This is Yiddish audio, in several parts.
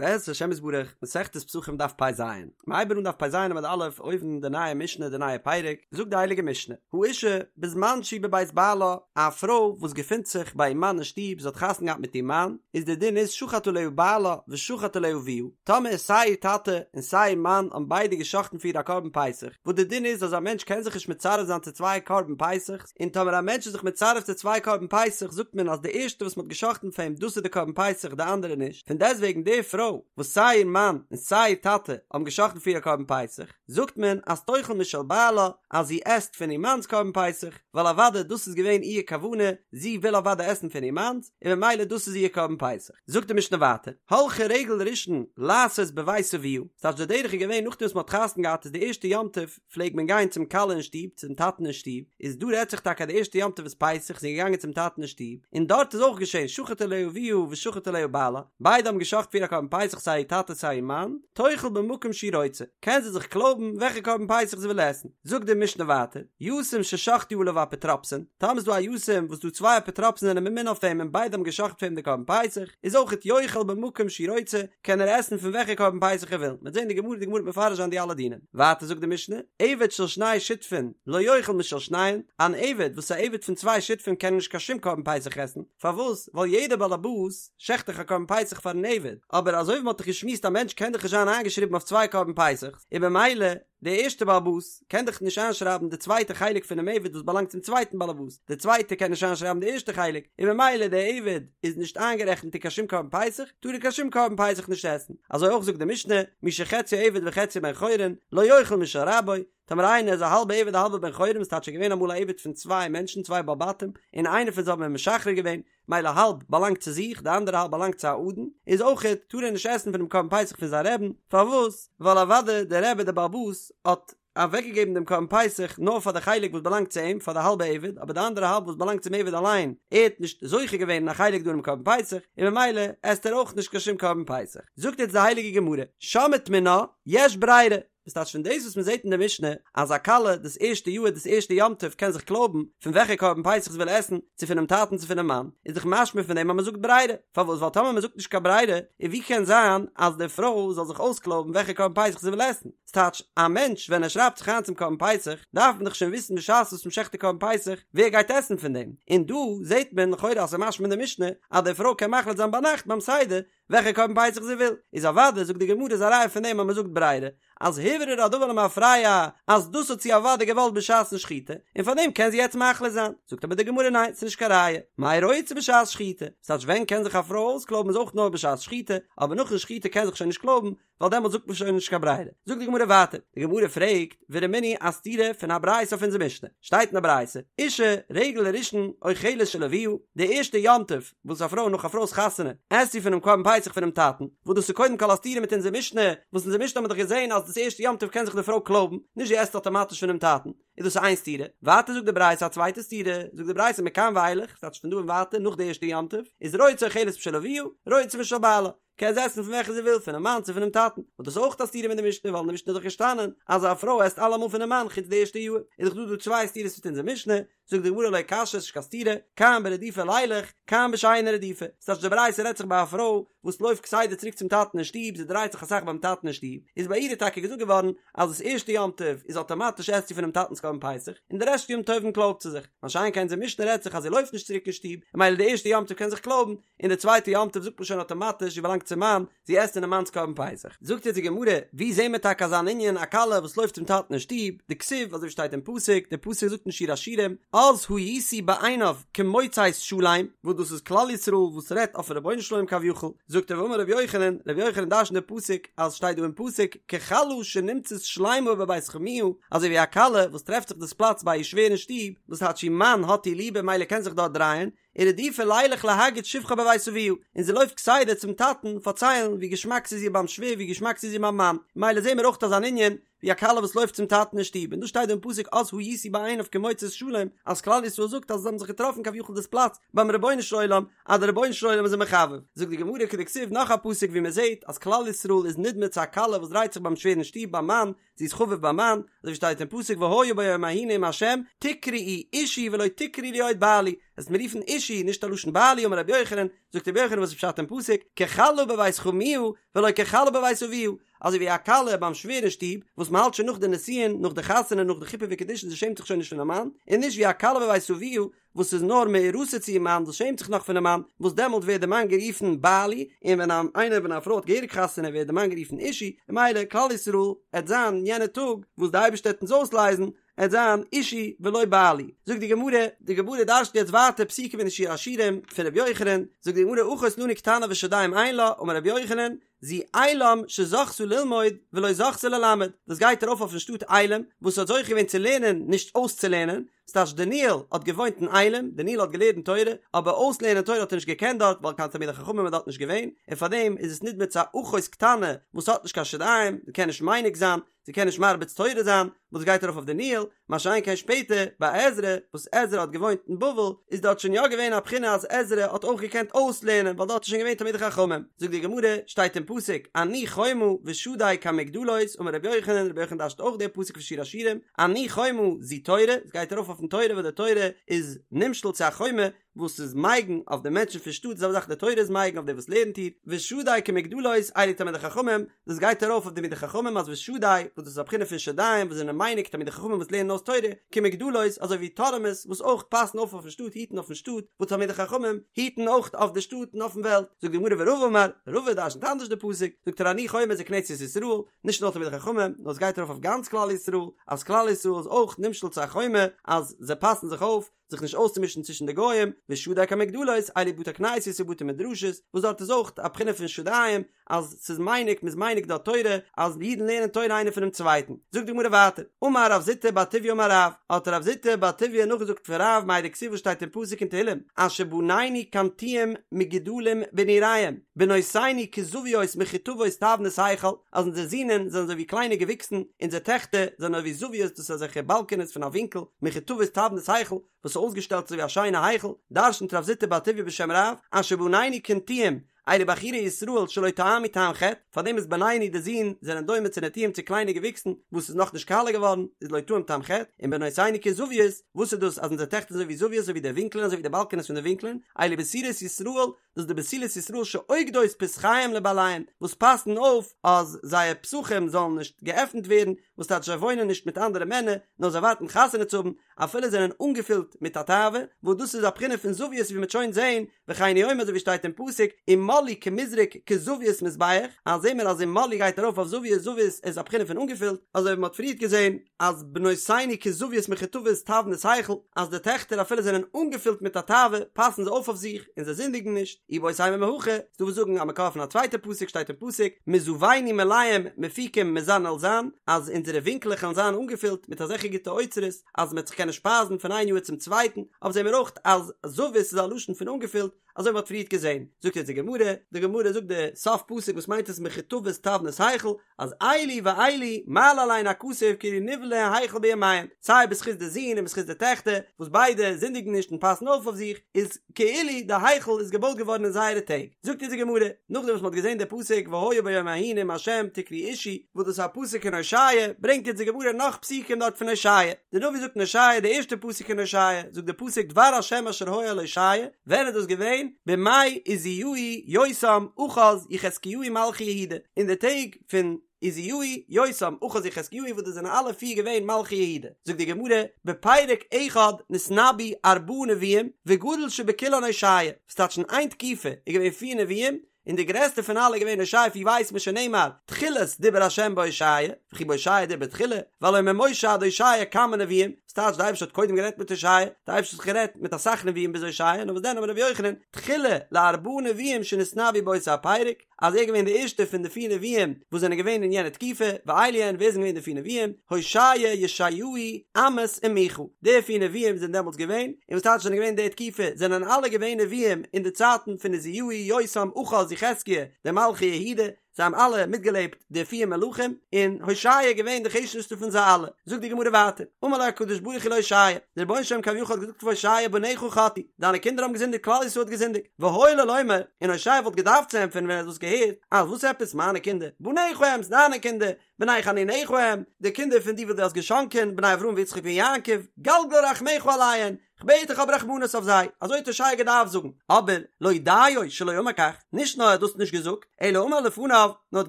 בעזרת השם יתברך, מסכת פסחים דף פ ז, מ'הייבן אן דף פ ז עמוד א', אויבן די נייע משנה די נייע פרק, זאגט די הייליגע משנה, האשה בזמן שהיא בבית בעלה, א פרוי וואס געפינט זיך ביי איר מאן אין שטוב, זי האט חתונה געהאט מיט איר מאן, איז די דין איז שחט עליה בעלה ושחט עליה אביה, טאמער סיי איר טאטע און סיי איר מאן האבן ביידע גע'שחט'ן פאר איר א קרבן פסח, וואס די דין איז אז א מענטש קען זיך נישט מצרף זיין צו צוויי קרבן פסח'ס, און טאמער א מענטש איז זיך מצרף צו צוויי קרבן פסח זאגט מען אז די ערשטע וואס מען האט גע'שחט'ן פאר אים דאס איז די קרבן פסח די אנדערע נישט, פון דעסטוועגן די פרוי וואס סיי איר מאן און סיי איר טאטע האבן גע'שחט'ן פאר איר א קרבן פסח זאגט מען אז תאכל משל בעלה אז זי עסט פון איר מאנ'ס קרבן פסח ווייל אוודאי דאס איז געווען איר כוונה זי וויל אוודאי עסן פון איר מאנ'ס און ממילא דאס איז איר קרבן פסח. זאגט די משנה ווייטער, הלכה רגל ראשון לעשות בבית אביה, ס'טייטש די דרך איז געווען נאכדעם וואס מען האט חתונה געהאט איז די ערשטע יום טוב פלעג מען גיין צום כלה אין שטוב, צום טאטן אין שטוב, איז דא רעדט זיך טאקע די ערשטע יום טוב איז פסח, זי איז געגאנגען צום טאטן אין שטוב, און דארט איז אויך געשען שחט עליה אביה ושחט עליה בעלה, ביידע האבן געשחט פאר איר א קרבן פסח סיי איר טאטע סיי איר מאן, תאכל במקום שהיא רוצה, קען זי זיך קלויבן וועלכע קרבן פסח זי וויל עסן, זאגט די משנה ווייטער, יתום ששחטו עליו אפוטרופסין, טאמער איז דא א יתום וואס דא צוויי אפוטרופסין זענען ממונה אויף אים און ביידע האבן געשחט פאר אים די קרבן פסח, איז אויכעט יאכל במקום שהוא רוצה, קען ער עסן פון וועלכע קרבן פסח ער וויל, מ'וועט זען די גמרא, די גמרא וועט מפרש זיין די אלע דינים. ווייטער זאגט די משנה, עבד של שני שותפין לא יאכל משל שניהם, אן עבד וואס איז א עבד פון צוויי שותפים קען נישט קיין שום קרבן פסח עסן, פארוואס? ווייל יעדער בעל הבית שעכט דאך א קרבן פסח פארן עבד, אבער אזוי ווי מ'האט דאך געשמועסט א מענטש קען דאך נישט זיין איינגעשריבן אויף צוויי קרבן פסח'ס, און במילא דער ערשטער בעל הבית קען דאך נישט איינשרייבן די צווייטע חלק פונעם עבד וואס באלאנגט צום צווייטן בעל הבית, דער צווייטער קען נישט איינשרייבן די ערשטע חלק, און במילא דער עבד איז נישט איינגערעכנט אין קיין שום קרבן פסח, טאר ער קיין שום קרבן פסח נישט עסן. אזוי אויך זאגט די משנה, מי שחציו עבד וחציו בן חורין, לא יאכל משל רבו, טאמער איינער איז א האלבע עבד א האלבע בן חורין, וואס טייטש ער איז געווען אמאל א עבד פון צוויי מענטשן, צוויי בעלי בתים, און איינער פון זיי האט מען משחרר געווען, מילא האלב באלאנגט צו זיך, די אנדערע האלב באלאנגט צו א אדון, איז אויכעט טאר ער נישט עסן פונעם קרבן פסח פון זיין רעבן, פארוואס? ווייל אוודאי דער רבי דער בעל הבית האט אוועקגעגעבן דעם קרבן פסח נאר פאר די חלק וואס באלאנגט צו אים, פאר די האלבע עבד, אבער די אנדערע האלב וואס באלאנגט צום עבד אליין, ער האט נישט זוכה געווען אין א חלק דא אינעם קרבן פסח, און ממילא עסט ער אויך נישט קיין שום קרבן פסח. זאגט יעצט די הייליגע גמרא, שמעת מינה, יש ברירה, וואס טייטש פון דאס וואס מען זעט אין די משנה אז א כלה דאס ערשטע יאהר דאס ערשטע יום טוב קען זיך קלויבן פון וועלכע קרבן פסח זי וויל עסן, צו פונעם טאטן צו פונעם מאן, איז דאך משמע פון דעם אז מען זאגט ברירה, פארוואס ווייל טאמער מען זאגט נישט קיין ברירה, איז ווי קען זיין אז די פרוי זאל זיך אויסקלויבן וועלכע קרבן פסח זי וויל עסן? ס'טייטש, א מענטש ווען ער שרייבט זיך איין צום קרבן פסח, דארף מען דאך שוין וויסן בשעת וואס מען שעכט די קרבן פסח ווער גייט עסן פון דעם, און דא זעט מען לכאורה אז ס'איז משמע אין די משנה אז די פרוי קען מחליט זיין ביינאכט ביים סדר וועלכע קרבן פסח זי וויל, איז אוודאי זאגט די גמרא איז א ראיה פון דעם אז מען זאגט ברירה, אז הוברר הדבר למפרע אז דאס האט זי אוודאי געוואלט בשעת'ן שחיטה, און פאר דעם קען זי יעצט מחליט זיין, זאגט אבער די גמרא ניין ס'איז נישט קיין ראיה, מאי רוצה בשעת שחיטה, ס'טייטש ווען קען זיך א פרוי אויסקלויבן איז אויך נאר בשעת שחיטה, אבער נאכן שחיטה קען זיך שוין נישט קלויבן, ווייל דעמאלט זאגט מען שוין נישט קיין ברירה. זאגט די גמרא ווייטער, די גמרא פרעגט, ורמינהי א סתירה פון א ברייתא אויף אונזער משנה, שטייט אין א ברייתא, אשה רגל ראשון אוכלת של אביה, די ערשטע יום טוב וואס א פרוי נאך א פרוי'ס חתונה עסט זי פונעם קרבן פסח פונעם טאטן, וואס דאס איז קודם כל א סתירה מיט אונזער משנה, וואס אונזער משנה האט מען דאך געזען אז דאס ערשטע יום טוב קען זיך די פרוי קלויבן, נישט זי עסט אטאמאטיש פונעם טאטן, איז דאס איין סתירה, ווייטער זאגט די ברייתא א צווייטע סתירה, זאגט די ברייתא מכאן ואילך, ס'טייטש פון דא און ווייטער נאך די ערשטע יום טוב, איז רוצה אוכלת משל אביה, רוצה משל בעלה. קען זי עסן פון וועלכע זי וויל, פונעם מאן צו פונעם טאטן, וואס דאס איז אויך א סתירה מיט די משנה, ווייל אין די משנה איז דאך געשטאנען אז א פרוי עסט אלעמאל פונעם מאן חוץ די ערשטע יאר, איז דאך דא דא צוויי סתירות מיט אונזער משנה, זאגט די גמרא לא קשיא, ס'איז נישט קיין סתירה, כאן ברדופה לילך, כאן בשאינה רדופה, ס'טייטש די ברייתא רעדט זיך ביי א פרוי וואס לויפט כסדר צוריק צום טאטן אין שטוב, זי דרייט זיך אסאך ביים טאטן אין שטוב, איז ביי איר איז טאקע געזאגט געווארן אז דאס ערשטע יום טוב איז אטאמאטיש עסט זי פונעם טאטנ'ס קרבן פסח, און די רעשט יום טובים קלויבט זי זיך, מה שאין כן אונזער משנה רעדט זיך אז זי לויפט נישט צוריק אין שטוב, ממילא די ערשטע יום טוב קען זיך קלויבן, און די צווייטע יום טוב זאגט מען שוין אטאמאטיש זי באלאנגט צום מאן, זי עסט אינעם מאנ'ס קרבן פסח. זאגט יעצט די גמרא, ווי זעהן מיר טאקע אזאן ענין, א כלה וואס לויפט צום טאטן אין שטוב, דכתיב, אזוי ווי שטייט אין פסוק, דער פסוק זאגט אין שיר השירים, אז הייתי בעיניו כמוצאת שלם, וואס דאס איז כלל ישראל וואס רעדט אויפן רבונו של עולם כביכול, זאגט ער ואמר רבי יוחנן, רבי יוחנן דרש'נט די פסוק אז שטייט דא אין פסוק, ככלה שנמצאת שלימה בבית חמיה, אזוי ווי א כלה וואס טרעפט זיך דאס פלאץ ביי איר שווער אין שטוב, וואס טייטש איר מאן האט איר ליב און ממילא קען זיך דארט דרייען, ורדופה לילך להגיד שבחה בבית אביה, און זי לויפט כסדר צום טאטן פארציילן ווי געשמאק ס'איז איר ביים שווער ווי געשמאק ס'איז איר ביים מאן, ממילא זעהן מיר אויך אזאן ענין ווי א כלה וואס לויפט צום טאטן אין שטוב, און דא שטייט דא אין פסוק אז הייתי בעיניו כמוצאת שלם, אז כלל ישראל זאגט אז זיי האבן זיך געטראפן כביכול דאס פלאץ ביים רבונו של עולם, אז דער רבונו של עולם איז זיי מחבב. זאגט די גמרא כדכתיב נאך א פסוק ווי מען זעהט אז כלל ישראל איז נדמה צו א כלה וואס דרייט זיך ביים שווער אין שטוב ביים מאן, זי איז חביב ביים מאן, אזוי ווי שטייט אין פסוק והיה ביום ההוא נאם ה' תקראי אישי ולא תקראי לי עוד בעלי, וועסט מיר רופן אישי, נישט א לשון בעלי, אמר רבי יוחנן, זאגט רבי יוחנן וואס איז פשט אין פסוק, ככלה בבית חמיה ולא ככלה בבית אביה, אזוי ווי א כלה ביים שווער אין שטוב, וואס מען האלט שוין נאך די נישואין, נאך די חתונה, נאך די חופה וקידושין, זי שעמט זיך שוין נישט פונעם מאן, און נישט ווי א כלה בבית אביה, וואס איז נאר מאורסה צו איר מאן, וואס שעמט זיך נאך פונעם מאן, וואס דעמאלט ווערט די מאן גערופן בעלי, און ווען איינער ווען א פרוי האט געהעריג חתונה ווערט די מאן גערופן אישי, און ממילא כלל ישראל עט זיין יענע טאג וואס די אייבערשטער עט אונז אויסלייזן, עט זיין אישי ולא בעלי. זאגט די גמרא, די גמרא דרש'נט יעצט ווייטער פסוקים אין שיר השירים פון ר' יוחנן, זאגט די גמרא אחות לנו קטנה ושדים אין לה, אמר ר' יוחנן, זו עילם שזכתה ללמוד ולא זכתה ללמד, דאס גייט ארויף אויפן שטאט עילם וואס האט זוכה געווען צו לערנען נישט אויסצולערנען, ס'טייטש דניאל האט געוואוינט אין עילם, דניאל האט געלערנט תורה, אבער אויסלערנען תורה האט ער נישט געקענט דארט ווייל קיין תלמידי חכמים איז דארט נישט געווען, און פארדעם איז עס נדמה צו א אחות קטנה וואס האט נישט קיין שדיים, זי קען נישט מניק זיין, זי קען נישט מרביץ תורה זיין, וואס גייט ארויף אויף דניאל, מה שאין כן שפעטער ביי עזרא, וואס עזרא האט געוואוינט אין בבל, איז דארט שוין יא געווען א בחינה אז עזרא האט אויך געקענט אויסלערנען ווייל דארט איז שוין געווען תלמידי חכמים. זאגט די גמרא, שטייט אין פסוק, אני חומה ושדי כמגדלות, אמר רבי יוחנן, רבי יוחנן דרש'ט אויך די פסוק פון שיר השירים, אני חומה זו תורה, עס גייט ארויף אויפן תורה וואס די תורה איז נמשל צו א חומה, וואס איז מגין אויף די מענטשן פון שטאט, די זעלבע זאך די תורה איז מגין אויף די וואס לערנט איר, ושדי כמגדלות אלו תלמידי חכמים, דאס גייט ארויף אויף די תלמידי חכמים אז ושדי, וואס דאס איז א בחינה פון שדיים וואס זענען מניק תלמידי חכמים וואס לערנען אויס תורה, כמגדלות אזוי ווי טורעמעס וואס אויך פאסן אויף אויפן שטאט היטן אויפן שטאט, וואס תלמידי חכמים היטן אויך אויף די שטאט און אויפן וועלט, זאגט די גמרא ורבא אמר, רבא דרשנ'ט אנדערש די פסוק, זאגט ער אני חומה זו כנסת ישראל, נישט נאר תלמידי חכמים, נאר עס גייט ארויף אויף גאנץ כלל ישראל, אז כלל ישראל איז אויך נמשל צו א חומה אז זיי פאסן זיך אויף, זיך נישט אויסצומישן צווישן די גוים, ושדי כמגדלות, אלו בתי כנסיות ובתי מדרשות, וואס דארט איז אויך א בחינה פון שדיים, אז ס'איז מניק, מ'איז מניק דארט תורה, אז אידן לערנען תורה איינער פונעם צווייטן. זאגט די גמרא ווייטער, אמר רב זוטא בר טוביה אמר רב, האט רב זוטא בר טוביה נאכגעזאגט פון רב מאי דכתיב וואס שטייט אין פסוק אין תהילים, אשר בנינו כנטיעים מגודלים בנעריהם, בנותינו כזויות מחוטבות תבנית היכל, אז אונזער זינען זענען אזוי ווי קליינע געוויקסן, אונזער טעכטער זענען אזוי ווי זויות, דאס איז אזעלכע באלקענעס פון א ווינקל, מחוטבות תבנית היכל, וואס איז אויסגעשטעלט אזוי ווי א שיינע היכל, דרשנ'ט רב זוטא בר טוביה בשם רב, אשר בנינו כנטיעים, אלו בחורי ישראל שלא טעמו טעם חטא, פארדעם איז בנינו די זין זענען דומה צו נטיעים צו קליינע געוויקסן וואס איז נאכנישט קאלע געווארן, איז לא טעם טעם חטא, און בנותינו כזויות, וואס איז דאס אז אונזער טעכטער זענען אזוי ווי זויות אזוי ווי די ווינקלען אזוי ווי די באלקענעס פון די ווינקלען, אלו בתולות ישראל, דאס איז די בתולות ישראל שאוגדות פתחיהם לבעליהן, וואס פאסן אויף אז זייער פתחים זאלן נישט געעפנט ווערן, וואס טייטש זיי וואוינען נישט מיט אנדערע מענער, נאר זיי ווארטן חתונה צו האבן, אפילו זענען אנגעפילט מיט א תאווה, וואס דאס איז א בחינה פון זוויות ווי מ'וועט שוין זען, וכן הוא אומר אזוי ווי שטייט אין פסוק, ומלאו כמזרק כזווית מזבח, אז זעהן מיר אז ומלאו גייט ארויף אויף זוויות, זוויות איז א בחינה פון אנגעפילט, אזוי ווי מ'האט פריערט געזען אז בנותינו כזוויות מחוטבות תבנית היכל, אז די טעכטער אפילו זענען אנגעפילט מיט א תאווה, פאסן זיי אויף אויף זיך, און זיי זינדיגן נישט, איבעית אימא מהכא, ס'דא וואס זאגן א מקור פון א צווייטע פסוק שטייט אין פסוק, מזוינו מלאים מפיקים מזן אל זן, אז אונזערע ווינקלעך וועלן זיין אנגעפילט מיט אזעלכע גוטע אוצרות, אז מ'וועט זיך קענען שפייזן פון איין יאר צום צווייטן, אבער זעהן מיר אויך אז זווית איז א לשון פון אנגעפילט, אזוי ווי מ'האט פריערט געזעהן. זאגט יעצט די גמרא, די גמרא זאגט די סוף פסוק וואס מיינט עס מחוטבות תבנית היכל, אז אלו ואלו מעלה עליהן הכתוב כאילו נבנה היכל בימיהן, סיי בזכות די זין און בזכות די טעכטער, וואס ביידע זינדיגן נישט און פאסן אויף אויף זיך, איז כאילו די היכל איז געבויט געווארן אין זייערע טעג. זאגט אונז די גמרא, נאכדעם וואס מ'האט געזען די פסוק והיה ביום ההוא נאם ה' תקראו אישי, וואס דאס איז א פסוק אין הושע, ברענגט אונז די גמרא נאך פסוקים דארט פון הושע. די נביא זאגט אין הושע, די ערשטע פסוק אין הושע, זאגט די פסוק דבר ה' אשר היה אל הושע, ווען איז דאס געווען? בימי עוזיהו יותם אחז יחזקיהו מלכי יהודה, אין די טעג פון עוזיהו יותם אחז יחזקיהו וואס דאס זענען אלע פיר געווען מלכי יהודה, זאגט די גמרא, בפרק אחד נתנבאו ארבעה נביאים וגדול שבכולן הושע, וואס טייטש אין איין תקופה איז געווען פיר נביאים, און די גרעסטע פון אלע איז געווען הושע ווי ווייסט מען שנאמר תחילת דיבר ה' בהושע, וכי בהושע דיבר תחילה, והלא ממשה עד הושע כמה נביאים, וואס טייטש די אייבערשטער האט קודם גערעדט מיט הושע, די אייבערשטער האט גערעדט מיט אסאך נביאים ביז הושע, נאר וואס דען אמר רבי יוחנן, תחילה לארבעה נביאים שנתנבאו באותו הפרק, אז ער איז געווען די ערשטע פון די פיר נביאים וואס זענען געווען אין יענע תקופה, ואלו הן ווער זענען געווען די פיר נביאים, הושע, ישעיהו, עמוס און מיכה, די פיר נביאים זענען דעמאלטס געווען, און וואס טייטש זענען געווען די תקופה, זענען אלע געווען נביאים אין די צייטן פון עוזיהו, יותם, אחז, יחזקיה, די מלכי יהודה, זיי האבן אלע מיטגעלעבט די פיר מלכים, און הושע איז געווען די חשובסטע פון זיי אלע. זאגט די גמרא ווייטער, אמר לו הקדוש ברוך הוא להושע, דער רבונו של עולם כביכול האט געזאגט פאר הושע בניך חטאו, דיינע קינדער האבן געזינדיגט כלל ישראל האט געזינדיגט, והיה לו לומר, און הושע וואלט געדארפט צו ענטפערן ווען ער האט דאס געהערט, אז וואס עפעס מיינע קינדער, בניך הם, ס'דיינע קינדער, בני חנוניך הם, די קינדער פון די וואס דו האסט געשאנקען, בני אברהם ויצחק ויעקב, גלגל רחמיך עליהן, כ'בעט דיך האב רחמנות אויף זיי, אזוי האט הושע געדארפט זאגן, אבער לא דיו שלא אמר כך, נישט נאר ער האט דאס נישט געזאגט, אלא אמר לפניו, נאר האט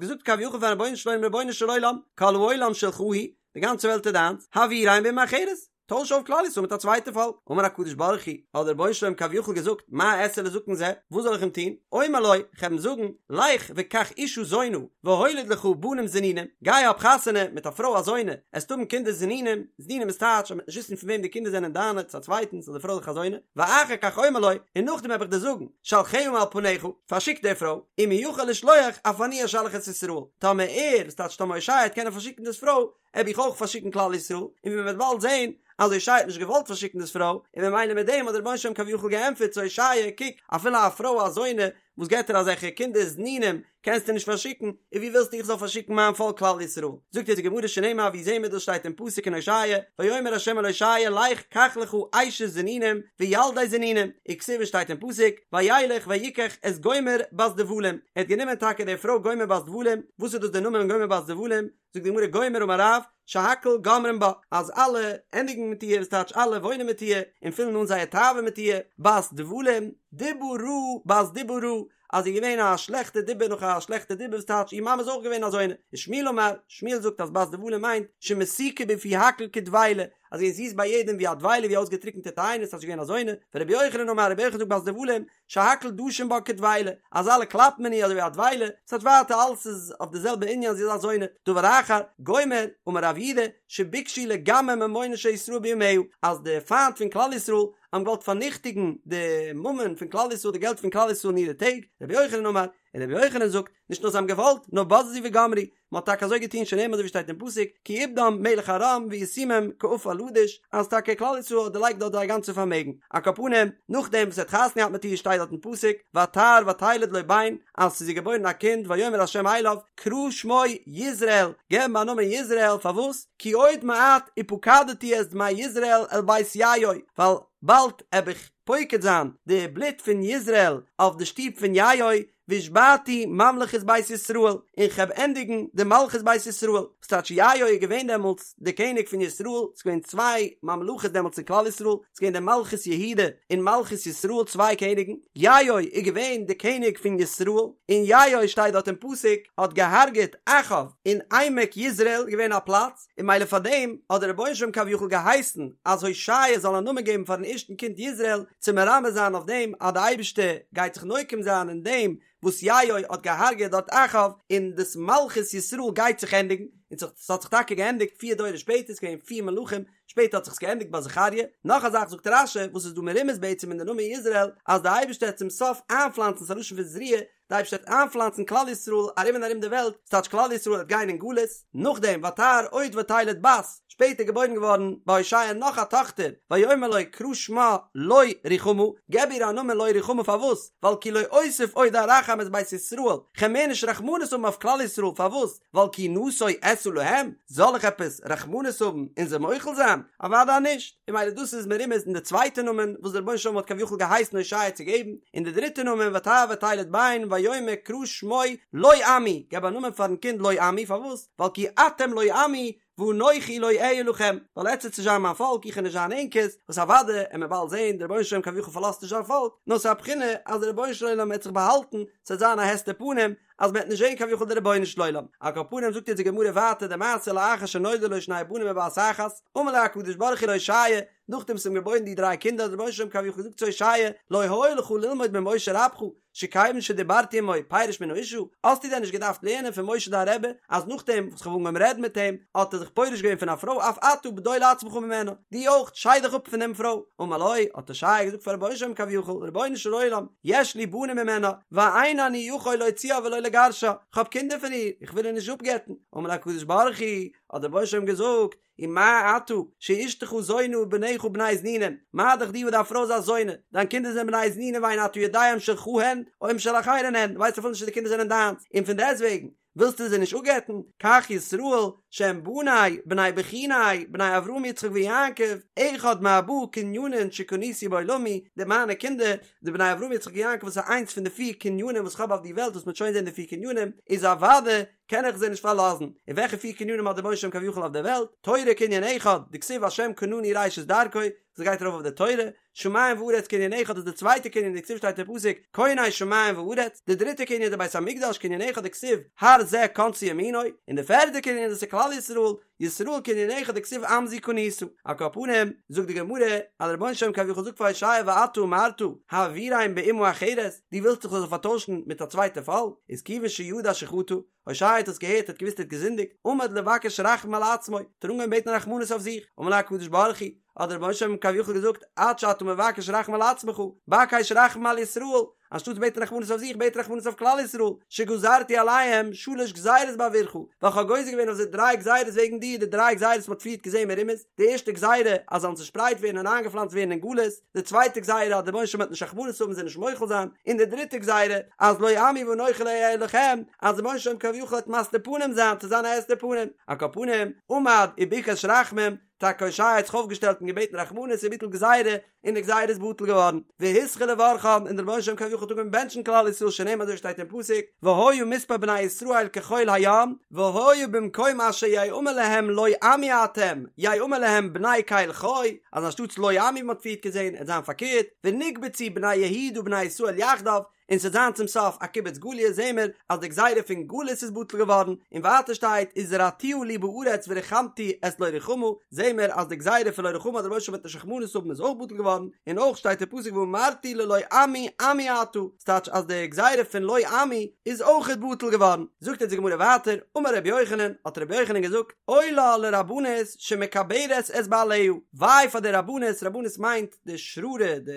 געזאגט כביכול פארן רבונו של עולם רבונו של עולם, כל העולם שלך הוא, די גאנצע וועלט איז דיינס, העבירם באומה אחרת, טויש אויף כלל ישראל מיט א צווייטע פאלק. אמר הקדוש ברוך הוא, האט דער רבונו של עולם כביכול געזאגט, מה אעשה לזקן זה, וואס זאל איך אים טון? אומר לו, איך וועל אים זאגן, לך וקח אישה זונה, והוליד לך בנים זנונים, גיי האב חתונה מיט א פרוי א זונה, עסט האבן קינדער זנונים, זנונים איז טייטש אז מ'וועט נישט וויסן פון וועם די קינדער זענען דיינע צו א צווייטנס אז די פרוי איז דאך א זונה, ואחר כך אומר לו, און נאכדעם וועל איך דיר זאגן, שלחה מעל פניך, פארשיק די פרוי, אם הוא יכול לשלוח, אף אני אשלח את ישראל, טאמער ער, וואס טייטש טאמער הושע וועט קענען פארשיקן דאס פרוי, וועל איך אויך פארשיקן כלל ישראל, און ווי מען וועט באלד זען אז הושע האט נישט געוואלט פארשיקן דאס פרוי, און ממילא מיט דעם האט דער רבונו של עולם כביכול געענטפערט צו הושע, קוק, אפילו א פרוי א זונה וואס געבט דיר אזעלכע קינדער זנונים קענסטו נישט פארשיקן, און ווי ווילסטו איך זאל פארשיקן מיין פאלק כלל ישראל? זאגט אונז די גמרא שנאמר ווי זעהן מיר דאס שטייט אין פסוק אין הושע, ויאמר ה' אל הושע לך קח לך אשת זנונים וילדי זנונים, וכתיב שטייט אין פסוק וילך ויקח את גומר בת דבלים, ער האט גענומען טאקע די פרוי גומר בת דבלים, וואס איז דאס דער נאמען גומר בת דבלים? זאגט די גמרא גומר אמר רב שהכל גומרים בה אז אלע ענדיגן מיט איר וואס טייטש אלע וואוינען מיט איר און פילן אן זייער תאווה מיט איר בת דבלים דיבה רעה בת דיבה רעה אז זי איז געווען א שלעכטע דיבה נאך א שלעכטע דיבה וואס טייטש איר מאמע איז אויך געווען א זונה ושמואל אמר שמואל זאגט אז בת דבלים מיינט שמתוקה בפי הכל כדבילה אז זי איז זיס ביי יעדעם ווי א דבילה ווי אויסגעטריקענטע תאנה אז זי איז געווען א זונה ורבי יוחנן אמר רבי יוחנן זאגט בת דבלים שהכל דשין בה כדבילה, אז אלע קלאפן אין איר אזוי ווי א דבילה, ס'טייטש ווייטער אלעס איז אויף די זעלבע ענין זי איז א זונה, דבר אחר, גומר, אמר רב יהודה, שביקשו לגמר ממונן של ישראל בימיה, אז די פיינט פון כלל ישראל האבן געוואלט פארניכטיגן די ממון פון כלל ישראל די געלט פון כלל ישראל אין אירע טעג, רבי יוחנן אמר, און רבי יוחנן זאגט, נישט נאר זיי האבן געוואלט, נאר בזזו וגמרו, מען האט טאקע אזוי געטון שנאמר אזוי ווי שטייט אין פסוק כי איבדם מלך ארם וישימם כעפר לדוש אז טאקע כלל ישראל האט דערלייגט דארט זייער גאנצע פארמעגן על כל פנים נאכדעם וואס ער האט חתונה געהאט מיט איר שטייט דארט אין פסוק ותהר ותלד לו בן אז ס'איז איר געבוירן א קינד ויאמר ה' אליו קרא שמו יזרעאל געב אים א נאמען יזרעאל פארוואס כי עוד מעט ופקדתי את דמי יזרעאל אל בית יהוא ווייל באלד עב איך פוקד זיין די בלוט פון יזרעאל אויף די שטוב פון יהוא והשבתי ממלכת בית ישראל, און כ'העב ענדיגן די מלכות בית ישראל, וואס טייטש יהוא איז געווען דעמאלטס די קעניג פון ישראל, ס'איז געווען צוויי ממלכות דעמאלטס אין כלל ישראל, ס'איז געווען די מלכות יהודה און מלכות ישראל צוויי קעניגן, יהוא איז געווען די קעניג פון ישראל, און יהוא שטייט דארט אין פסוק האט געהארגעט אחאב אין עמק יזרעאל געווען א פלאץ, און ממילא פאר דעם האט דער רבונו של עולם כביכול געהייסן אז הושע זאל א נאמען געבן פארן ערשטן קינד יזרעאל, צו מרמז זיין אויף דעם אז די אייבערשטער גייט זיך נוקם זיין אין דעם וואס יהוא האט געהארגעט דארט אחאב, און דאס מלכות ישראל גייט זיך ענדיגן, און ס'האט זיך טאקע געענדיגט פיר דורות שפעטער, ס'איז געווען פיר מלכים, שפעטער האט זיך עס געענדיגט ביי זכריה, נאך א זאך זאגט רש"י וואס איז דא מרומז בעצם אין די נאמען יזרעאל, אז די אייבערשטער וועט צום סוף איינפלאנצן, ס'איז א לשון פון זריעה, די אייבערשטער וועט איינפלאנצן כלל ישראל ארום און ארום די וועלט, ס'טייטש כלל ישראל וועט גיין אין גלות, נאכדעם ותהר עוד ותלד בת, שפעטער געבוירן געווארן ביי הושע נאך א טאכטער, ויאמר לו קרא שמה לא רוחמה, געב איר א נאמען לא רוחמה פארוואס? ווייל כי לא אוסיף עוד ארחם את בית ישראל, כ'על מער נישט רחמנות האבן אויף כלל ישראל, פארוואס? ווייל כי נשוא אשא להם, זאל איך עפעס רחמנות האבן און זיי מוחל זיין? אוודאי נישט! און ממילא דאס איז מרומז אין די צווייטע נאמען וואס דער רבונו של עולם האט כביכול געהייסן הושע צו געבן, און די דריטע נאמען ותהר ותלד בן ויאמר קרא שמו לא עמי, געב א נאמען פארן קינד לא עמי, פארוואס? ווייל כי אתם לא עמי ואנכי לא אהיה לכם, ווייל עטס וועט נישט זיין מיין פאלק, איך וועל נישט זיין ענקערס, וואס אוודאי וועט מען באלד זען, דער רבונו של עולם כביכול פארלאזט נישט זיין פאלק, נאר ס'איז א בחינה אז דער רבונו של עולם וועט זיך באהאלטן, ס'וועט זיין א הסתר פנים, אז מ'וועט נישט זען כביכול די רבונו של עולם. על כל פנים זאגט יעצט די גמרא ווייטער די מעשה לאחר שנולדו לו שני בנים בבת אחת, אמר לו הקדוש ברוך הוא להושע, נאכדעם וואס אים געבוירן די דריי קינדער האט דער רבונו של עולם כביכול געזאגט צו הושע, לא היה לך ללמוד ממשה רבך, שכיוון שדיברתי עמו פירש מן האשה, האסטו דען נישט געדארפט לערנען פון משה דיין רבי, אז נאכדעם וואס כ'האב אנגעהויבן רעדן מיט אים, האט ער זיך פורש געווען פון א פרוי אף אתה בדול עצמך ממנה, דו אויך, שייד דיך אפ פון דעם פרוי. אמר לו, האט הושע געזאגט פאר רבונו של עולם כביכול, רבונו של עולם, יש לי בנים ממנה, ואין אני יכול להוציאה ולא לגרשה, כ'האב קינדער פון איר, איך וויל איר נישט אפגט'ן. אמר לו הקדוש ברוך הוא, האט דער רבונו של עולם געזאגט, ומה אתה, שאשתך זונה ובניך בני זנונים, מה דאך דו וואס דיין פרוי איז א זונה, דיין קינדער זענען בני זנונים ואין אתה יודע אם שלך הן, או אם של אחרים הן, דו ווייסט אפילו נישט צו די קינדער זענען דיינס, און פון דעסטוועגן, ווילסטו זיי נישט אפגט'ן, כך ישראל, שהם בני, בני בחוני, בני אברהם יצחק ויעקב, אחד מארבעה קניינין שקניתי בעולמי, די מיינע קינדער, די בני אברהם יצחק ויעקב וואס איז איינס פון די פיר קנינים וואס כ'האב אויף די וועלט וואס מ'וועט שוין זען די פיר קנינים, איז אוודאי. קען איך זיי נישט פארלאזן, און וועלכע פיר קנינים האט דער רבונו של עולם כביכול אויף דער וועלט, תורה קנין אחד, דכתיב השם קנני ראשית דרכו, וואס גייט ארויף אויף די תורה, שמים וארץ קנין אחד איז די צווייטע קנין דכתיב שטייט אין פסוק קונה שמים וארץ, די דריטע קנין איז די בית המקדש קנין אחד דכתיב הר זה קנתה ימינו, און די פערדע קנין איז דאס איז כלל ישראל, ישראל קנין אחד דכתיב עם זו קנית. על כל פנים, זאגט די גמרא, אז דער רבונו של עולם כביכול זאגט פאר הושע ואתה אמרת העבירם באומה אחרת, דו ווילסט איך זאל זיי פארטוישן מיט א צווייטע פאלק, איז כיוון שידע שחטא, הושע האט עס געהערט האט געוואוסט ער האט געזינדיגט, עמד לבקש רחמים על עצמו, האט ער אנגעהויבן בעטן רחמנות אויף זיך, אמר לו הקדוש ברוך הוא, האט דער רבונו של עולם כביכול געזאגט, עד שאתה מבקש רחמים על עצמך, בקש רחמים על ישראל, אנשטאטס בעטן רחמנות אויף זיך, בעט רחמנות אויף כלל ישראל, שגזרתי עליהם שלש גזירות בעבורך, ווייל כ'האב גוזר געווען אויף זיי דריי גזירות וועגן דיר, די דריי גזירות וואס מ'האט פריערט געזען מרומז, די ערשטע גזירה, אז זיי זאלן צושפרייט ווערן און איינגעפלאנצט ווערן אין גלות, די צווייטע גזירה אז דער רבונו של עולם וועט נישט רחמנות האבן זיי נישט מוחל זיין, און די דריטע גזירה אז לא עמי ואנכי לא אהיה לכם, אז דער רבונו של עולם כביכול וועט מסתיר פנים זיין צו זיין א הסתר פנים, על כל פנים, עמד וביקש רחמים, טאקע הושע האט זיך אויפגעשטעלט און געבעטן רחמנות וביטל גזירה, און די גזירה איז בטל געווארן, והתחיל לברכן, און דער רבונו של עולם כביכול האט אנגעהויבן בענטשן כלל ישראל שנאמר אזוי שטייט אין פסוק, והיה מספר בני ישראל כחול הים, והיה במקום אשר יאמר להם לא עמי אתם, יאמר להם בני קל חי, אז אנשטאטס לא עמי ווי מ'האט פריערט געזען, עט זיין פארקערט, ונקבצו בני יהודה ובני ישראל יחדיו, און ס'עט זיין צום סוף א קיבוץ גליות זעהן מיר אז די גזירה פון גלות איז בטל געווארן, און ווייטער שטייט וזרעתיה לי בארץ ורחמתי את לא רוחמה, זעהן מיר אז די גזירה פון לא רוחמה אז דער רבונו של עולם וועט נישט רחמנות האבן איז אויך בטל געווארן, און אויך שטייט אין פסוק ואמרתי ללא עמי עמי אתה, ס'טייטש אז די גזירה פון לא עמי איז אויכעט בטל געווארן. זאגט אונז די גמרא ווייטער, אמר רבי יוחנן, האט רבי יוחנן געזאגט, אוי לה לרבנות שמקברת את בעליה, וויי פאר די רבנות, רבנות מיינט די שררה, די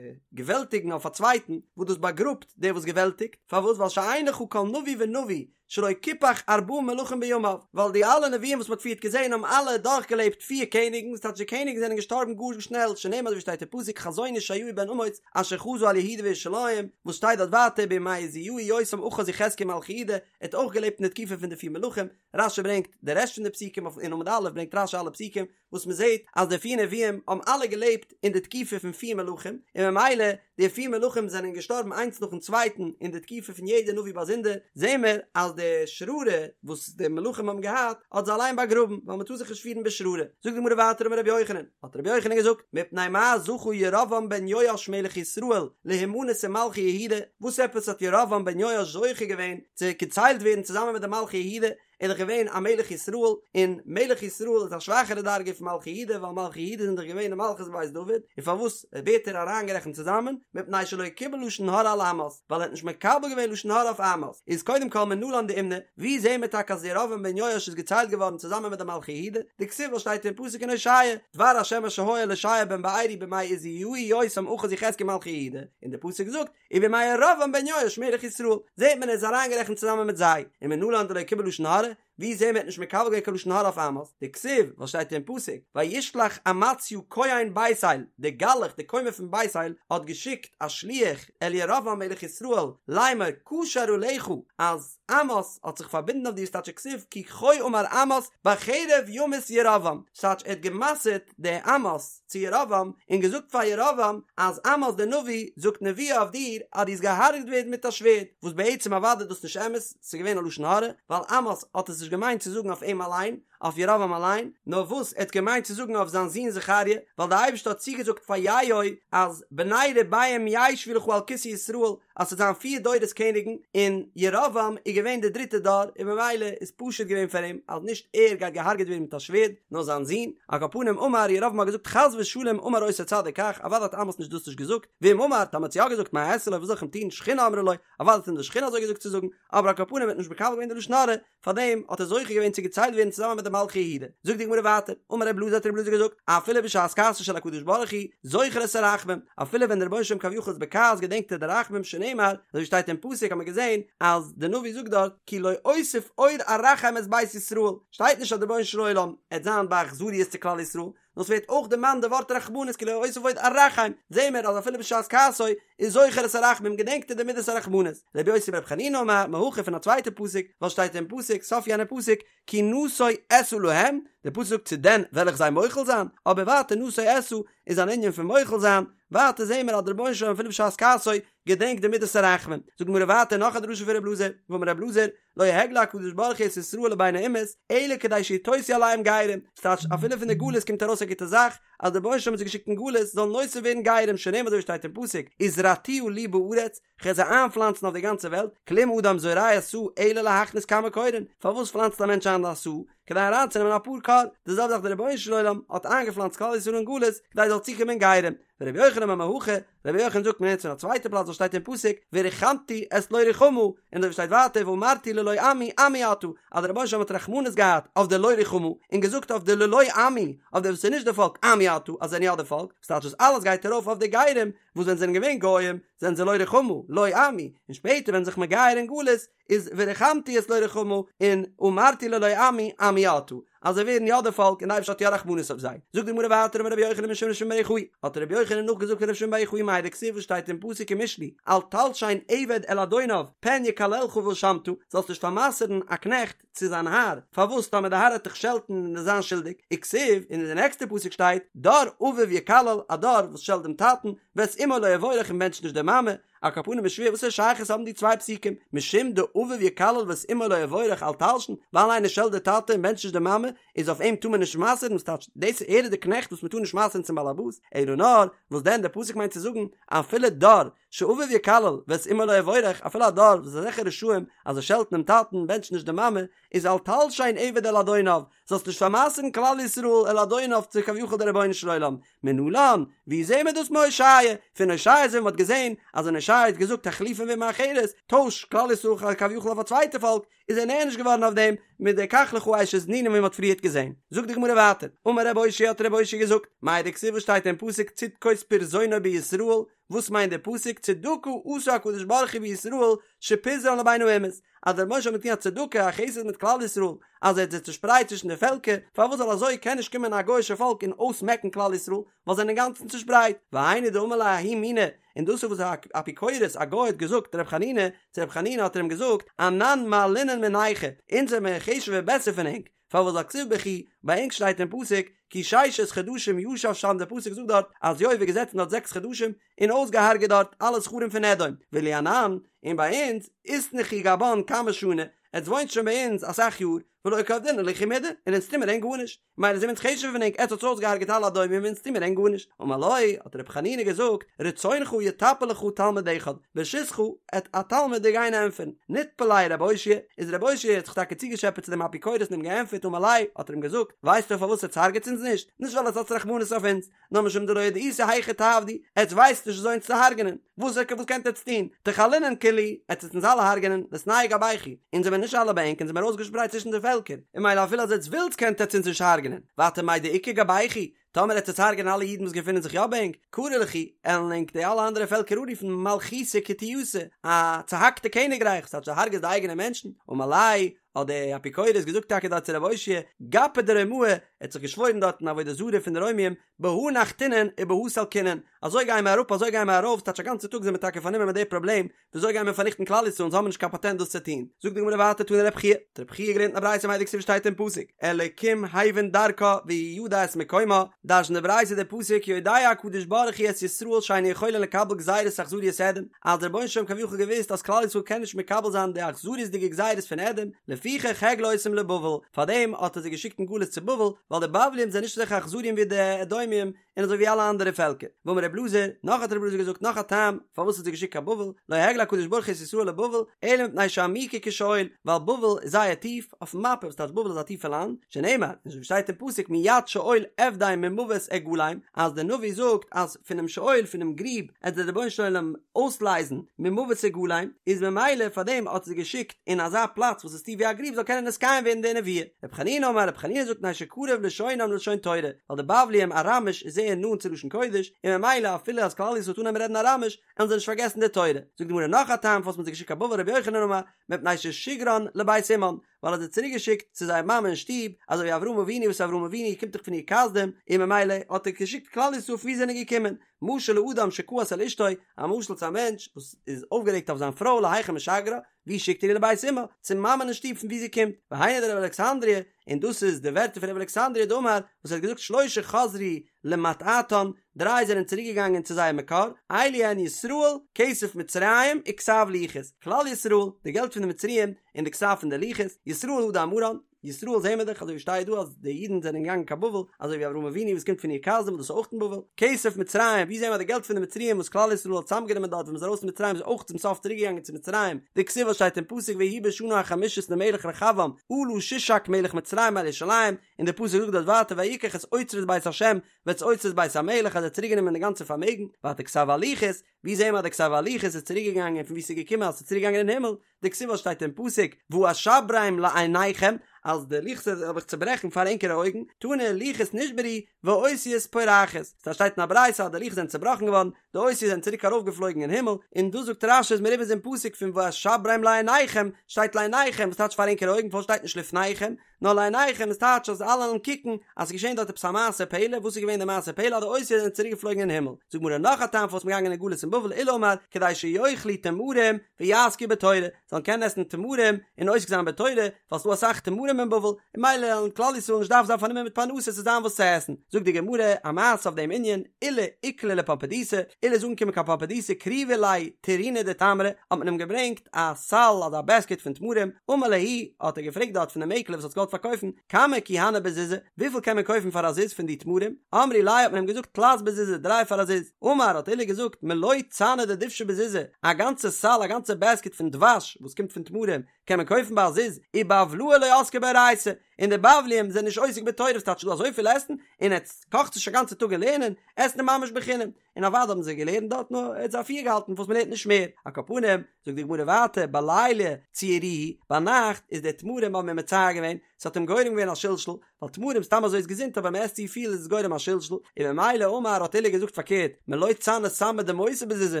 געוועלטיגן אויף א צווייטן, וואס דאס באגראבט דער וואס געוועלטיגט, פארוואס ווייל שאין לך כל נביא ונביא שלא קיפח ארבעה מלכים בימיו, ווייל די אלע נביאים וואס מ'האט פריערט געזען האבן אלע דורכגעלעבט פיר קעניגן, ס'טייטש די קעניגן זענען געשטארבן גאר שנעל, שנאמר אזוי ווי שטייט אין פסוק חזון ישעיהו בן אמוץ אשר חזה על יהודה וירושלים, וואס שטייט דארט ווייטער בימי עוזיהו יותם אחז יחזקיה מלכי יהודה, ער האט אויך געלעבט אין די תקופה פון די פיר מלכים, רשי ברענגט די רעשט פון די פסוקים אויף אין עמוד א' ברענגט רשי אלע פסוקים, וואס מען זעט אז די פיר נביאים האבן אלע געלעבט אין די תקופה פון פיר מלכים, און ממילא די פיר מלכים זענען געשטארבן איינס נאכן צווייטן אין די תקופה פון יעדע נביא באזונדער, זעהן מיר אז די שררה וואס די מלכים האבן געהאט האט זיי אליין באגראבן, ווייל מען טאר זיך נישט פירן בשררה. זאגט די גמרא ווייטער אמר רבי יוחנן, האט רבי יוחנן געזאגט, מפני מה זכה ירבעם בן יואש מלך ישראל להימנות עם מלכי יהודה, וואס עפעס האט ירבעם בן יואש זוכה געווען צו געציילט ווערן צוזאמען מיט די מלכי יהודה, איז דאך געווען א מלך ישראל, און מלך ישראל איז א שוואכערע דרגה פון מלכי יהודה, ווייל מלכי יהודה זענען דאך געווען די מלכות בית דוד, און פארוואס ווערט ער אריינגערעכנט צוזאמען, מפני שלא קיבל לשון הרע על עמוס, ווייל ער האט נישט מקבל געווען לשון הרע אויף עמוס, איז קודם כל מנלן דאימני, ווי זעהן מיר טאקע אז ירבעם בן יואש איז געציילט געווארן צוזאמען מיט די מלכי יהודה, דכתיב וואס שטייט אין פסוק אין הושע, דבר השם אשר היה אל הושע בן בארי בימי עוזיהו יותם אחז יחזקיה מלכי יהודה, און די פסוק זאגט, ובימי ירבעם בן יואש מלך ישראל, זעהט מען ער איז אריינגערעכנט צוזאמען מיט זיי, ומנלן דלא קיבל לשון הרע, ווי זעהן מיר ער האט נישט מקבל געווען קיין לשון הרע אויף עמוס, דכתיב, וואס שטייט אין פסוק, וישלח אמציה כהן בית אל, דער גלח דער כומר פון בית אל האט געשיקט א שליח אל ירבעם מלך ישראל, לאמר קשר עליך, אז עמוס האט זיך פארבינדן אויף דיר ס'טייטש וכתיב כי כה אמר עמוס בחרב ימות ירבעם, ס'טייטש ער האט גע'מסר'ט די עמוס צו ירבעם און געזאגט פאר ירבעם אז עמוס דער נביא זאגט נבואה אויף דיר אז דו וועסט געהארגעט ווערן מיט א שווערד, וואס בעצם אוודאי איז דאס נישט אמת, ס'איז געווען א לשון הרע, ווייל עמוס האט עס נישט געמיינט צו זאגן אויף אים אליין, אויף ירבעם אליין, נאר וואס ער האט געמיינט צו זאגן אויף זיין זון זכריה, ווייל דער אייבערשטער האט צוגעזאגט פאר יהוא אז בני רבעים ישבו לך על כסא ישראל, אז ס'וועט זיין פיר דורות קעניגן, און ירבעם איז געווען דער דריטער דור, און ממילא איז פשוט געווען פאר אים אז נישט ער גייט געהארגעט ווערן מיט א שווערד, נאר זיין זון. על כל פנים אמר, ירבעם האט געזאגט חס ושלום אמר אותו צדיק כך, אוודאי האט עמוס נישט דאס נישט געזאגט, ואם אמר, טאמער האט יא געזאגט מה אעשה לו וואס זאל איך אים טון, שכינה אמרה לו, אוודאי האט אים די שכינה אזוי געזאגט צו זאגן, אבער על כל פנים ער האט נישט מקבל געווען די לשון הרע, פארדעם האט ער זוכה געווען צו געציילט ווערן צוזאמען מיט די מלכי יהודה. זאגט די גמרא ווייטער, אמר רב אלעזר האט רב אלעזר געזאגט, אפילו בשעת כעסו של הקדוש ברוך הוא, זוכר את הרחמים, אפילו ווען דער רבונו של עולם כביכול איז בכעס געדענקט ער די רחמים שנאמר, אזוי ווי שטייט אין פסוק האט מען געזען אז די נביא זאגט דארט, כי לא אוסיף עוד ארחם את בית ישראל, שטייט נישט אז דער רבונו של עולם עט זיין באכזריות צו כלל ישראל, נאר ס'ווערט אויך דערמאנט די ווארט רחמנות כי לא אוסיף עוד ארחם, זעהן מיר אז אפילו בשעת כעסו איז זוכר את הרחמים געדענקט ער די מידת הרחמנות. רבי יוסי ברבי חנינא אמר מהכא פון א צווייטע פסוק, וואס שטייט אין פסוק, סוף יענע פסוק, כי נשוא אשא להם, דער פסוק זאגט צו דען וועל איך זיי מוחל זיין, אבער ווייטער נשוא אשא איז אן ענין פון מוחל זיין, ווייטער זעהן מיר אז דער רבונו של עולם אפילו בשעת כעסו געדענקט די מידת הרחמים. זאגט די גמרא ווייטער נאך א דרשה פון ר' אלעזר, ואמר ר' אלעזר, לא הגלה הקדוש ברוך הוא את ישראל לבין האומות, אלא כדי שיתוספו עליהם גרים, ס'טייטש אפילו פון די גלות קומט ארויס א גוטע זאך, אז דער רבונו של עולם האט זיי געשיקט אין גלות זאלן נוסף ווערן גרים, שנאמר אזוי ווי שטייט אין פסוק, וזרעתיה לי בארץ, כ'וועל זיי איינפלאנצן אויף די גאנצע וועלט, כלום אדם זורע סאה אלא להכניס כמה כורין, פארוואס פלאנצט א מענטש איין א סאה? כדי אריינצונעמען אפאר כור, די זעלבע זאך דער רבונו של עולם האט איינגעפלאנצט כלל ישראל אין גלות כדי זאל צוקומען גרים, ורבי יוחנן אמר מהכא, רבי יוחנן זאגט מ'לערנט פון א צווייטע פלאץ וואס שטייט אין פסוק וריחמתי את לא רוחמה, און אזוי ווי שטייט ווייטער ואמרתי ללא עמי עמי אתה, אז דער רבונו של עולם האט רחמנות געהאט אויף די לא רוחמה, און געזאגט אויף די ללא עמי, אויף די וואס איז נישט די פאלק עמי אתה, אז זיי זענען יא די פאלק, וואס טייטש דאס אלעס גייט ארויף אויף די גרים, וואס ווען זיי זענען געווען גוים זענען זיי לא רוחמה, לא עמי, און שפעטער ווען זיך מגייר אין גלות איז וריחמתי את לא רוחמה און אמרתי ללא עמי עמי אתה, אז זיי ווערן יא די פאלק און די אייבערשטער האט יא רחמנות אויף זיי. זאגט די גמרא ווייטער אמר רבי יוחנן משום רבי שמעון בר יוחאי, האט רבי יוחנן נאכגעזאגט פון רבי שמעון בר יוחאי מאי דכתיב וואס שטייט אין פסוק אין משלי אל תלשין עבד אל אדוניו פן יקללך ואשמת, זאלסט נישט פאר'מסר'ן א קנעכט צו זיין האר, פארוואס טאמער די האר העט דיך שעלטן און וועסט זיין שולדיג, וכתיב, און אין די נעקסטע פסוק שטייט דור אביו יקלל, א דור וואס שעלט דעם טאטן, ואת אמו לא יבורך און בענטשט נישט די מאמע, על כל פנים איז שווער וואס א שייכות האבן די צוויי פסוקים, משום דאביו יקלל ואת אמו לא יבורך אל תלשין, ווייל איינער שעלט די טאטע און בענטשט נישט די מאמע, איז אויף אים טאר מען נישט מסר'ן, וואס טייטש דאס ער איז די קנעכט וואס מען טאר נישט מסר'ן צום באלעבאס, אלא נאר, וואס דען די פסוק מיינט צו זאגן, אפילו דור שאביו יקלל ואת אמו לא יבורך, אפילו א דור וואס איז אזעלכע רשעים אז זיי שעלטן דעם טאטן און בענטשן נישט די מאמע, איז אל תלשין עבד אל אדוניו, זאלסט נישט פאר'מסר'ן כלל ישראל אל אדוניו צו כביכול די רבונו של עולם, מנלן, ווי זעהן מיר דאס מהושע? פון הושע זעהן מ'האט געזעהן אז ווען הושע האט געזאגט החליפן באומה אחרת, טויש כלל ישראל כביכול אויף א צווייטע פאלק, איז ער נענש געווארן אויף דעם מיט די קח לך אשת נינים ווי מ'האט פריערט געזעהן. זאגט די גמרא ווייטער, אמר רב אושעיא האט רב אושעיא געזאגט, מאי דכתיב וואס שטייט אין פסוק צדקות פרזונו בישראל, וואס מיינט דער פסוק צדקה עשה הקדוש ברוך הוא בישראל שפיזרן לבין האומות, אז דער רבונו של עולם האט געטון א צדקה א חסד מיט כלל ישראל אז ער האט זיי צושפרייט צווישן די פעלקער, פארוואס זאל אזוי קען נישט קומען א גוי'אישע פאלק און אויסמעקן כלל ישראל ווייל זיי זענען אינגאנצן צושפרייט, והיינו דאמר ליה ההוא מינא, און דאס איז וואס א אפיקורס א גוי האט געזאגט ר' חנינא, צו ר' חנינא האט ער אים געזאגט, אנן מעלינן מינייכו, אונז זעמיר חשוב'ער בעסער פון ענק, פארוואס ווייל כתיב בכו, ביי ענק שטייט אין פסוק, כי ששת חדשים ישב שם דער פסוק זאגט דארט אז יואב איז געזעצן דארט זעקס חדשים און אויסגעהארגעט דארט אלע זכרים פון אדום, ואילו אנן, און ביי אונז, אתנכו גבן כמה שני, עטס וואוינט שוין ביי אונז אסאך יאר, ולא קא עבדינן לכו מידי, און אונז טוהמער ענק גארנישט, מילא זעמיר אונז חשוב'ער פון ענק, עטס האטס אויסגעהארגעט אלע אדומים און אונז טוהמער ענק גארנישט, אמר לו, האט ר' חנינא געזאגט, רצונך יטפל לך תלמיד אחד, ברשותך, עט א תלמיד דיר גיין ענטפערן, נטפל ליה רב אושעיא, איז רב אושעיא האט זיך טאקע צוגעטשעפעט צו דעם אפיקורס און אים געענטפערט אמר ליה, האט ער אים געזאגט, ווייסטו פארוואס עטס הרג'עטס אונז נישט? נישט ווייל עטס האטס רחמנות אויף אונז, נאר משום דלא ידעיתו היכי תעבדו, עטס ווייסט נישט וויאזוי אונז צו הרג'נען, וואס וואס קענט עטס טון, תכלינן כולהו, עטס וועט אונז אלע הרג'נען, ליתנהו גבייכו, אונז זעמיר נישט אלע ביי ענק, אונז זעמיר אויסגעשפרייט צווישן די פעלקער, און מילא אפילו אז עטס ווילטס קענט עטס אונז נישט הרג'נען, ווייטער מאי דאיכא גבייכו, טאמער עטס וועטס הרג'נען אלע אידן וואס געפינען זיך יא ביי ענק, קרו לכו, עלן ענק די אלע אנדערע פעלקער אנרופן מלכותא קטיעתא, א צוהאקטע קעניגרייך, ס'טייטש דו הרג'סט די אייגענע מענטשן, אמר ליה, האט דער אפיקורס געזאגט טאקע דארט צו רב אושעיא, גפא דרומאי, ער האט זיך געשוואוירן דארט אין עבודה זרה פון די רוימים, בהא נחתינן ובהא סלקינן, אזוי גייען מיר אראפ אזוי גייען מיר ארויף, ס'טייטש א גאנצע טאג זענען מיר טאקע פארנומען מיט די פראבלעם, וויאזוי גייען מיר פארניכטן כלל ישראל אונז האבן נישט קיין פאטענט דאס צו טון, זאגט די גמרא ווייטער תני רב חייא, האט רב חייא געלערנט אין א ברייתא מאי דכתיב שטייט אין פסוק, אלקים הבין דרכה והוא ידע את מקומה, דרש'נט די ברייתא די פסוק יודע הקדוש ברוך הוא את ישראל שאין יכולין לקבל גזירת אכזריות אדום, אז דער רבונו של עולם כביכול געוואוסט אז כלל ישראל קען נישט מקבל זיין די אכזריות'דיגע גזירות פון אדום, לפיכך הגלה אותם לבבל, פארדעם האט ער זיי געשיקט אין גלות צו בבל, ווייל די בבלים זענען נישט אזעלכע אכזריים ווי די אדומים, און אזוי ווי אלע אנדערע פעלקער. ואמר רב אלעזר, נאך האט רב אלעזר געזאגט נאך א טעם פארוואס האט זיי געשיקט קיין בבל, לא הגלה הקדוש ברוך הוא את ישראל לבבל, אלא מפני שעמוקה כשאול, ווייל בבל איז זייער טיף, אויפן מאפע, וואס טייטש בבל איז א טיפע לאנד, שנאמר, און אזוי ווי שטייט אין פסוק מיד שאול אפדה ממוות אגאלם, אז דער נביא זאגט אז פונעם שאול, פונעם גריב, עט דער רבונו של עולם אויסלייזן ממוות אגאלם, איז ממילא פארדעם האט ער זיי געשיקט אין אזא פלאץ וואס איז טיף ווי א גריב זאל קענען נתקיים ווערן די נבואה. רבי חנינא אמר, רבי חנינא זאגט מפני שקרוב לשונם ללשון תורה, ווייל די בבלים אראמיש איז זייער נאנט צו לשון קודש, און ממילא אפילו אז כלל ישראל וועט אנהייבן רעדן אראמיש, עלן זיי נישט פארגעסן די תורה. זאגט די גמרא נאך א טעם פארוואס מען האט זיי געשיקט קיין בבל רבי יוחנן אמר, מפני ששיגרן לבית אמן, ווייל ער האט זיי צוריק געשיקט צו זייער מאמע אין שטוב, אזוי ווי אברהם אבינו וואס אברהם אבינו קומט דאך פון אור כשדים, און ממילא האט ער געשיקט כלל ישראל פון וואו זיי זענען געקומען. משל לאדם שכעס על אשתו, א משל צו א מענטש וואס איז אויפגערעגט אויף זיין פרוי להיכן משגרה, ווי שיקט ער איר לבית אמה? צום מאמען אין שטוב פון וואו זי קומט. והיינו דרב אלכסנדרי. און דאס איז די ווערטער פון רבי אלכסנדרי דאמר וואס ער האט געזאגט שלשה חזרו למטעתן, דריי זענען צוריק געגאנגען צו זייער מקור, אלו הן ישראל, כסף מצרים, וכתב לוחות, כלל ישראל, די געלט פון די מצריים, און די כתב פון די לוחות, ישראל הא דאמרן, ישראל זעהן מיר דאך אזוי ווי שטייט דא אז די אידן זענען געגאנגען קיין בבל, אזוי ווי אברהם אבינו וואס קומט פון אור כשדים וואס דאס איז אויך אין בבל, כסף מצרים, ווי זעהן מיר אז די געלט פון די מצריים וואס כלל ישראל האט צוזאמגענומען דארט ווען מ'איז ארויס פון מצרים איז אויך צום סוף צוריק געגאנגען צו מצרים, דכתיב וואס שטייט אין פסוק ויהי בשנה החמישית למלך רחבעם עלה שישק מלך מצרים על ירושלים, און די פסוק זאגט דארט ווייטער ויקח את אוצרות בית השם ואת אוצרות בית המלך אז ער האט צוריק גענומען די גאנצע פארמעגן, ווייטער כתב הלוחות, ווי זעהן מיר אז די כתב הלוחות איז צוריק געגאנגען פון ווי ס'איז געקומען אז ס'איז צוריק געגאנגען אין הימל, דכתיב וואס שטייט אין פסוק ואשברם לעיניכם אז די לוחות וועל איך צוברעכן פאר ענקערע אויגן, תנא לוחות נשברו ואותיות פורחות, סא שטייט אין א ברייתא אז די לוחות זענען צובראכן געווארן, די אותיות זענען צוריק ארויפגעפלויגן אין הימל, און דא זאגט רש"י איז מרומז אין פסוק פון ואשברם לעיניכם, שטייט לעיניכם וואס טייטש פאר ענקערע אויגן פארוואס שטייט נישט לפניכם, נאר לעיניכם איז טייטש אז אלע וועלן קוקן אז ס'איז געשען דארט עפעס א מעשה פלא, וואס איז געווען די מעשה פלא אז די אותיות זענען צוריק געפלויגן אין הימל, זאגט גמרא נאך א טעם פארוואס מ'איז געגאנגען אין גלות אין בבל עולא אמר כדי שיאכלו תמרים ויעסקו בתורה, זאלן קענען עסן תמרים און עוסק זיין בתורה, ווייל ס'דא אסאך תמרים אין בבל, און ממילא וועלן כלל ישראל נישט דארפן זיין פארנומען מיט פרנסה ס'זאל זיין וואס צו עסן, זאגט די גמרא א מעשה אויף דעם ענין, עולא איקלע לפומבדיתא, עולא איז אנגעקומען קיין פומבדיתא קריבו ליה טירינא דתמרי, האט מען אים געברענגט א סל אדער א בעסקעט פון תמרים, אמר להו, האט ער געפרעגט דארט פון די מעקלער וואס האט געוואלט פארקויפן, כמה כי הני בזוזא, וויפיל קען מען קויפן פאר א זוז פון די תמרים, אמרי ליה האט מען אים געזאגט תלת בזוזא דריי פאר א זוז, אמר האט עולא געזאגט מלא צנא דדובשא בזוזא, א גאנצע סל א גאנצע בעסקעט פון דבש וואס קומט פון תמרים קען מען קויפן ביי א זוז, ובבלאי לא עסקי באורייתא, און די בבליים זענען נישט עוסק בתורה וואס טייטש דא אזויפיל עסן, און עטס קאכטס נישט א גאנצע טאג אין לערנען, עסן איז ממש בחינם, און אוודאי האבן זיי געלערנט דארט נאר ער האט זיי אפירגעהאלטן פארוואס מ'לערנט נישט מער, על כל פנים, זאגט די גמרא ווייטער בליליא צערוהו, ביינאכט איז די תמרים האבן אים מצער געווען, ס'האט אים גורם געווען א שלשול, ווייל תמרים סתם אזוי איז געזונט אבער מ'עסט צו פיל איז עס גורם א שלשול, און ממילא אמר האט עולא געזאגט פארקערט, מלא צנא סמא דמותא בזוזא,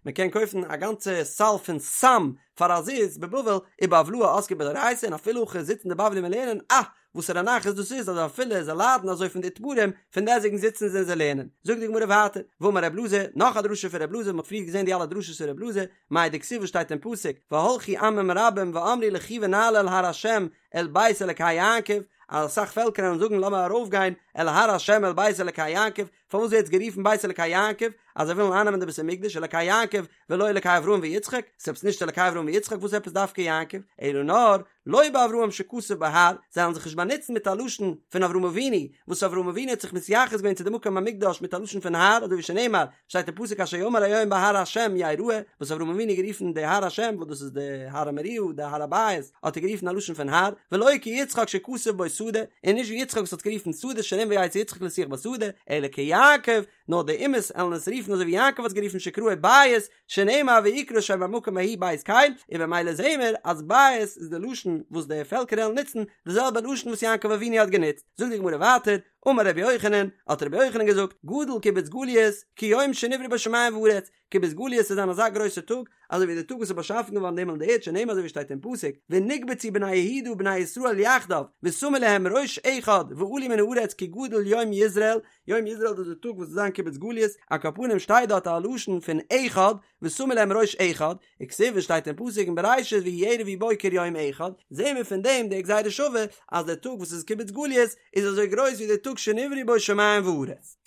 מ'קען קויפן א גאנצע סל פון סם פאר א זוז בבבל, ובבלאי עסקי באורייתא און אפילו הכי זיצן די בבלים און לערנען, אה! וואסערע נחת דאס איז אז אפילו זיי ליידן אזוי פון די תמרים, פון דעסטוועגן זיצן זיי און זיי לערנען. זאגט די גמרא ווייטער, ואמר ר' אלעזר, נאך א דרשה פון ר' אלעזר, מ'האט פריער געזען די אלע דרשות פון ר' אלעזר, מאי דכתיב וואס שטייט אין פסוק, והלכו עמים רבים ואמרו לכו ונעלה אל הר השם אל בית אלקי יעקב, אז אסאך פעלקער וועלן זאגן לאמיר ארויפגיין אל הר השם אל בית אלקי יעקב, פארוואס ווערט עס גערופן בית אלקי יעקב, אז זיי ווילן אייננעמען די בית המקדש, אלקי יעקב ולא אלקי אברהם ויצחק, ס'איז עפעס נישט אלקי אברהם ויצחק, וואס עפעס דווקא יעקב, אלא נאר, לא באברהם שכתוב בו הר, זיי וועלן זיך נישט באנוצן מיט א לשון פון אברהם אבינו, וואס אברהם אבינו האט זיך מתייחס געווען צו די מקום המקדש מיט א לשון פון הר, אזוי ווי שנאמר, שטייט אין פסוק אשר יאמר היום בהר השם יראה, וואס אברהם אבינו האט גערופן די הר השם, וואס דאס איז די הר המוריה, די הר הבית, האט ער גערופן א לשון פון הר, ולא כיצחק שכתוב בו שדה, און נישט ווי יצחק וואס האט גערופן שדה שנאמר ויצא יצחק לשוח בשדה, אלא כיעקב, נאר די אומות עלן עס רופן אזוי ווי יעקב האט עס גערופן שקראו בית, שנאמר ויקרא שם המקום ההוא בית קל, און במילא זעהן מיר אז בית איז די לשון וואס די פעלקער עלן נוצן, די זעלבע לשון וואס יעקב אבינו האט גענוצט. זאגט די גמרא ווייטער, אמר רבי יוחנן, האט רבי יוחנן געזאגט, גדול קיבוץ גליות, כיום שנבראו בו שמים וארץ, קיבוץ גליות וועט זיין אזא גרויסע טאג, אזוי ווי די טאג וואס איז באשאפן געווארן די הימל און די ערד שנאמר אזוי ווי שטייט אין פסוק, ונקבצו בני יהודה ובני ישראל יחדיו, ושמו להם ראש אחד, ועלו מן הארץ כי גדול יום יזרעאל, יום יזרעאל דאס איז די טאג וואס וועט זיין קיבוץ גליות, על כל פנים שטייט דארט א לשון פון אחד, ושמו להם ראש אחד, וכתיב עס שטייט אין פסוק אין בראשית ויהי ערב ויהי בוקר יום אחד, זעהן מיר פון דעם די גזירה שווה אז דער טאג וואס איז קיבוץ גליות איז אזוי גרויס ווי דער טאג שנבראו בו שמים וארץ.